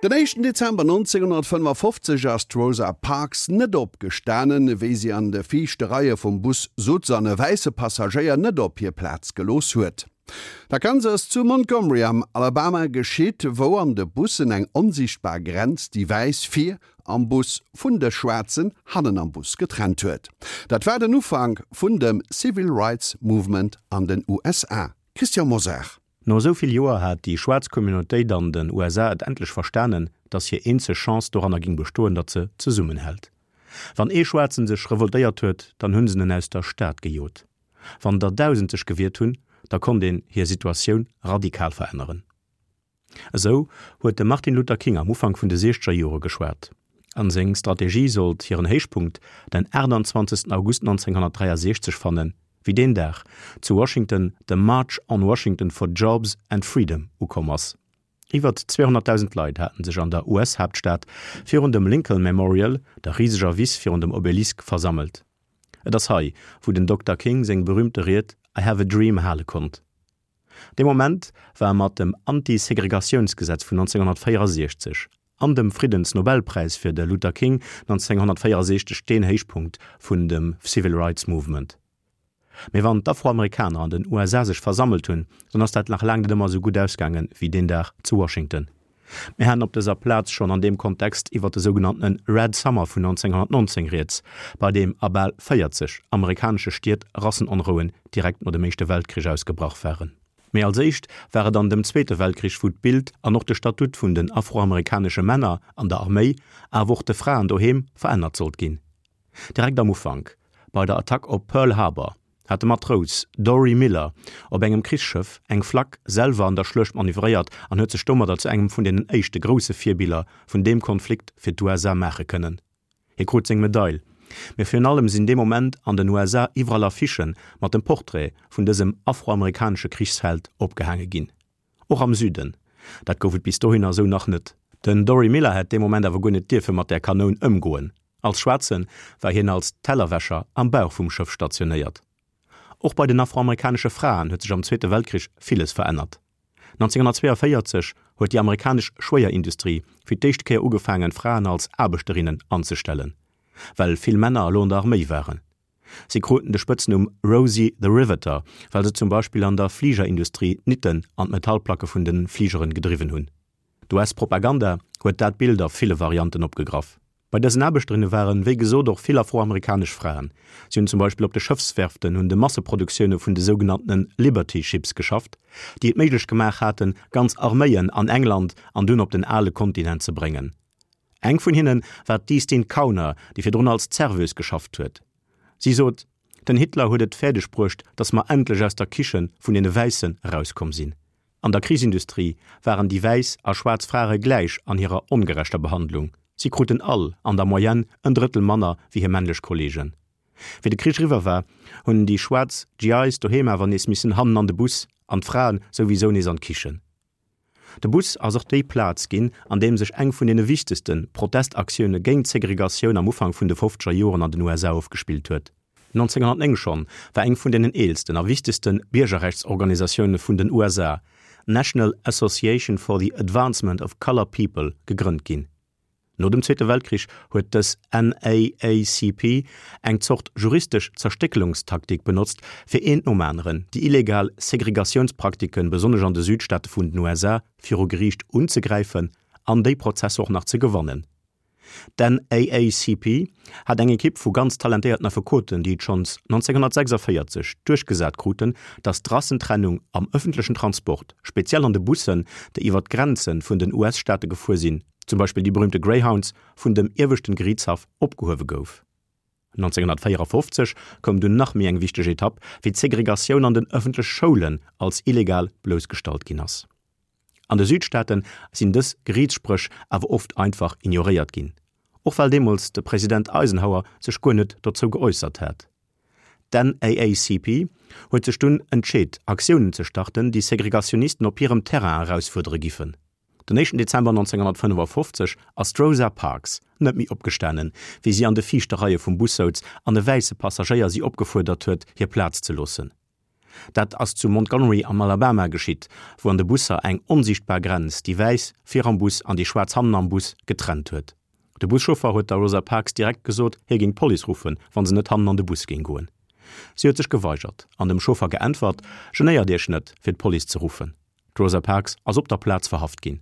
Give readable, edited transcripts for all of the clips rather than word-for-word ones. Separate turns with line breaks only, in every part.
Den éischten Dezember 1955 ass d'Rosa Parks net opgestanen, wéi si an de viischte Reie vum Bus sutz an e wäisse Passagéier net op hir Plaz gelooss huet. Dat Ganzt ass zu Montgomery am Alabama geschitt, wou an de Bussen eng onsiichtbar Grenz déi Wäiss vir am Bus vun de Schwaarzen hannen am Bus getrennt huet. Dat war den Ufank vun dem Civil Rights Movement an den USA. Christian Mosar.
No esou vill Joer hat déi schwaarz Communautéit an den USA et endlech verstanen, datt hir eenzeg Chance doranner ging bestoen, datt se zesummenhält. Wann ee Schwaarzen sech revoltéiert huet, dann hunn se en aus der Stad gejot. Wann der 1.000 sech gewiert hunn, da konnt een hir Situatioun radikal veränneren. Esou huet de Martin Luther King am Ufank vun de siechzeger Jore geschwat. An seng Strategie sollt hiren Héichpunkt den 28 August 1963 fannen, wéi deen Dag zu Washington de March on Washington for Jobs and Freedom ukomm ass. Iwwert 200.000 Leit haten sech an der US-Haaptstad virun dem Lincoln Memorial, der riseger Wiss virun dem Obelisk, versammelt. Et ass hei, wou den Dokter King seng berüümte Ried I have a dream hale konnt. Dee Moment war mat dem Anti-Segregatiounsgesetz vun 1964 an dem Friddensnobelpräis fir de Luther King 1964 deen Héichpunkt vun dem Civil Rights Movement. Mee wann d'Afroamerikaner an den USA sech versammelt hunn, dann ass dat nach laang net ëmmer esou gutt ausgaangen wéi deen Dag zu Washington. Mir haten op dëser Plaz schonn an deem Kontext iwwer de sougenanntene Red Summer vun 1919 rieds, bei deem a bal 40 amerikanesche Stied Rassenonrouen direkt no dem Éischte Weltkrich ausgebrach waren. Mee als éischt war et an dem Zweete Weltkrich, wou d'Bild an och de Statut vun den afroamerikanesche Männer an der Arméi, awer och de Fraen doheem, verännert sollt ginn. Direkt am Ufank, bei der Attack op Pearl Harbor, hat de Matrous Dorie Miller op engem Krichsschëff eng Flak selwer an der Schluecht manövréiert an huet sech domadder zu engem vun deenen éischte grousse Virbiller vun deem Konflikt fir d'USA maache kënnen. Hie krut seng Medail, mee virun allem sinn dee Moment an den USA iwwerall Affichë mat dem Portrait vun dësem afroamerikanesche Krichsheld opgehaange ginn. Och am Süden. Dat gouf et bis dohinner esou nach net. Den Dorie Miller hätt dee Moment awer guer net dierfe mat där Kanoun ëmgoen. Als Schwaarze war hien als Tellerwäscher am Bauch vum Schëff stationéiert. Och bei den afroamerikanesche Fraen huet sech am Zweete Weltkrich villes verännert. 1942 huet déi amerikanesch Schwéierindustrie fir d'éischt Kéier ugefaangen, Fraen als Aarbechterinnen anzestellen, well vill Männer elo an der Arméi waren. Si kruten de Spëtznumm Rosie the Riveter, well se zum Beispill an der Fligerindustrie d'Nitten an d'Metallplacke vun de Fligeren gedriwwen hunn. D'US-Propaganda huet dat Bild a ville Varianten opgegraff. Bei dësen Aarbechterinne waren, wéi gesot, och vill afroamerikanesch Fraen. Si hunn zum Beispill op de Schëffswerften un de Masseproduktioune vun de sougenanntene Liberty Ships geschafft, déi et méiglech gemaach haten, ganz Arméien an England an dunn op den ale Kontinent ze bréngen. Eng vun hinne war d'Eastine Kauner, déi virdrun als Serveuse geschafft huet. Si sot, Den Hitler huet et fäerdeg bruecht, datt mer endlech aus der Kiche vun deene Wäissen erauskomm sinn. An der Krichsindustrie waren déi wäiss a schwaarz Frare gläich an hirer ongerechter Behandlung. Si kruten all an der Moyenne en Drëttel manner wéi hir männlech Kolleegen. Wéi de Krich eriwwer war, hunn déi schwaarz GIs doheem awer nees missen hannen an de Bus an d'Fraen souwisou nees an d'Kichen. De Bus ass och déi Plaz ginn, an deem sech eng vun deene wichtegste Protestaktioune géint d'Segregatioun am Ufank vun de fofzeger Joren an den USA ofgespillt huet. 1909 schonn war eng vun deenen eelsten a wichtegste Biergerrechtsorganisatioune vun den USA, d'National Association for the Advancement of Colored People, gegrënnt ginn. No dem Zweete Weltkrich huet dës NAACP eng Zort juristesch Zerstéckelungstaktik benotzt, fir eent nom aneren déi illegal Segregatiounspraktiken, besonnesch an de Südstaate vun den USA, viru Geriicht unzegräifen an déi Prozesser och nach ze gewannen. D'NAACP hat eng Ekipp vu ganz talentéierten Affekoten, déi et schonns 1946 duerchgesat kruten, datt d'Rassentrennung am ëffentlechen Transport, speziell an de Bussen, déi iwwer d'Grenze vun den US-Staate gefuer sinn, zum Beispill déi berühmte Greyhounds, vun dem ieweschten Geriichtshaff opgehuewe gouf. 1954 koum dunn nach méi eng wichteg Etapp, wéi d'Segregatioun an den ëffentlech Schoulen als illegal bloussgestallt ginn ass. An de Südstaate sinn dës Geriichtsspréch awer oft einfach ignoréiert ginn, och well deemools de President Eisenhower sech guer net dozou geäussert hat. D'NAACP huet sech dunn entscheet, Aktiounen ze starten, déi Segregationisten op hirem Terrain erausfuerdere giffen. Den éischten Dezember 1955 ass d'Rosa Parks net méi opgestanen, wéi si an de viischte Reie vum Bus souz an e wäisse Passagéier si opgefuerdert huet, hir Plaz ze loossen. Dat ass zu Montgomery am Alabama geschitt, wou an de Busser eng onsiichtbar Grenz déi Wäiss vir am Bus an déi Schwaarz hannen am Bus getrennt huet. De Buschauffer huet der Rosa Parks direkt gesot, hie géing d'Police ruffen, wa se net hannen an de Bus géing goen. Si huet sech geweigert an dem Chauffer geäntwert, Genéiert Iech net, fir d'Police ze ruffen. D'Rosa Parks ass op der Plaz verhaft ginn.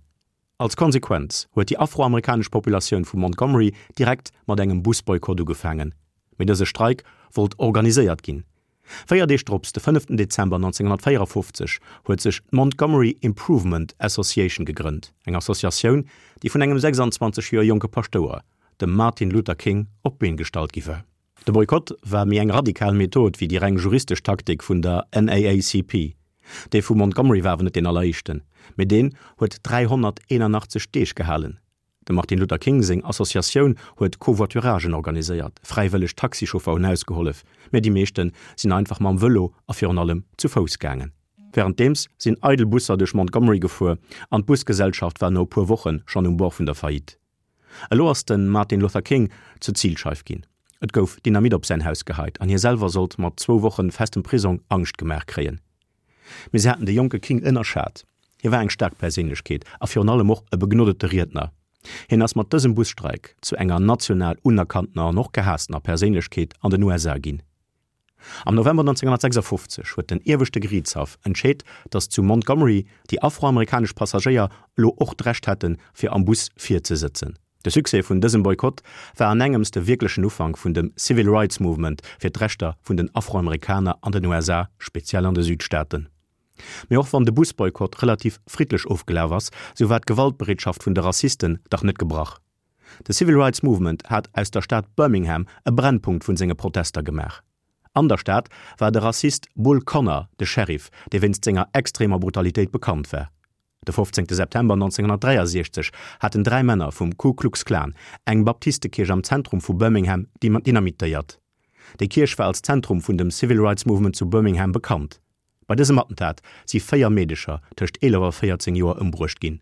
Als Konsequenz huet déi afroamerikanesch Populatioun vu Montgomery direkt mat engem Busboykott ugefaangen. Mee dëse Streik wollt organiséiert ginn. Véier Deeg drops, de fënneften Dezember 1954, huet sech d'Montgomery Improvement Association gegrënnt, eng Associatioun, déi vun engem 26 Joer jonke Paschtouer, dem Martin Luther King, op d'Been gestallt gi war. De Boykott war méi eng radikal Method wéi déi reng juristesch Taktik vun der NAACP. Dee vu Montgomery war awer net deen alleréischten, mee deen huet 381 Deeg gehalen. Dem Martin Luther King seng Associatioun huet Covoituragen organiséiert, fräiwëlleg Taxichauffer hunn ausgehollef, mee déi meeschte sinn einfach mam Vëlo a virun allem zu Fouss gaangen. Wärenddeems sinn eidel Busser duerch Montgomery gefuer an d'Busgesellschaft war no e puer Woche schonn um Bord vun der Faillite. Elo ass de Martin Luther King zur Zilscheif ginn. Et gouf Dynamit op säin Haus geheit an hie selwer sollt mat zwou Wochen festem Prisong Angscht gemaach kréien. Mee se haten de jonke King ënnerschat. Hie war eng staark Perséinlechkeet a virun allem och e begnodete Riedner. Hien ass mat dësem Busstreik zu enger national unerkanntener an och gehaasstener Perséinlechkeet an den USA ginn. Am November 1956 huet den Ieweschte Geriichtshaff entscheet, datt zu Montgomery déi afroamerikanesch Passagéier elo och d'Recht hätten, fir am Bus vir ze sëtzen. De Succès vun dësem Boykott war an engems de wierklechen Ufank vun dem Civil Rights Movement fir d'Rechter vun den Afroamerikaner an den USA, speziell an de Südstaaten. Mee och wann de Busboykott relativ friddlech ofgelaf ass, sou war d'Gewaltbereetschaft vun de Rassisten dach net gebrach. De Civil Rights Movement hat aus der Stad Birmingham e Brennpunkt vun senge Protester gemaach. An der Stad war de Rassist Bull Connor de Sheriff, dee wéinst senger extremer Brutalitéit bekannt war. De 15 September 1963 haten dräi Männer vum Ku Klux Klan eng Baptistekierch am Zentrum vu Birmingham dynamitéiert. Déi Kierch war als Zentrum vun dem Civil Rights Movement zu Birmingham bekannt. Bei dësem Attentat si véier Meedecher tëscht 11 a 14 Joer ëmbruecht ginn.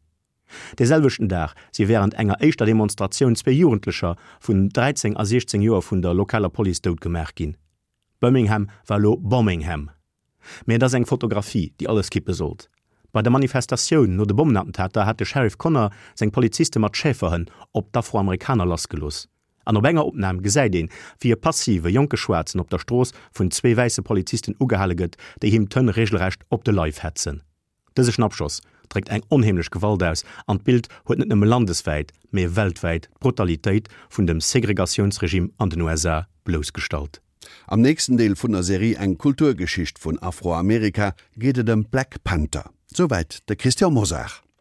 Dee selwechten Dag si wärend enger éischter Demonstratioun zwee Jugendlecher vun 13 a 16 Joer vun der lokaler Police dout gemaach ginn. Birmingham war elo Bombingham. Mee et ass eng Fotografie, déi alles kippe sollt. Bei der Manifestatioun no de Bommenattentater hat de Sheriff Connor seng Poliziste mat Schäferhënn op d'Afroamerikaner lassgelooss. An op enger Opnam gesäit een, wéi e passive jonke Schwaarzen op der Strooss vun zwee wäisse Polizisten ugehale gëtt, déi him d'Hënn reegelrecht op de Leif hetzen. Dëse Schnappschoss dréckt eng onheemlech Gewalt aus an d'Bild huet net nëmme landeswäit, mee weltwäit d'Brutalitéit vun dem Segregatiounsregime an den USA bloussgestallt.
Am nächsten Deel vun der Serie Eng Kulturgeschicht vun Afroamerika geet et ëm d'Black Panther. Souwäit de Christian Mosar.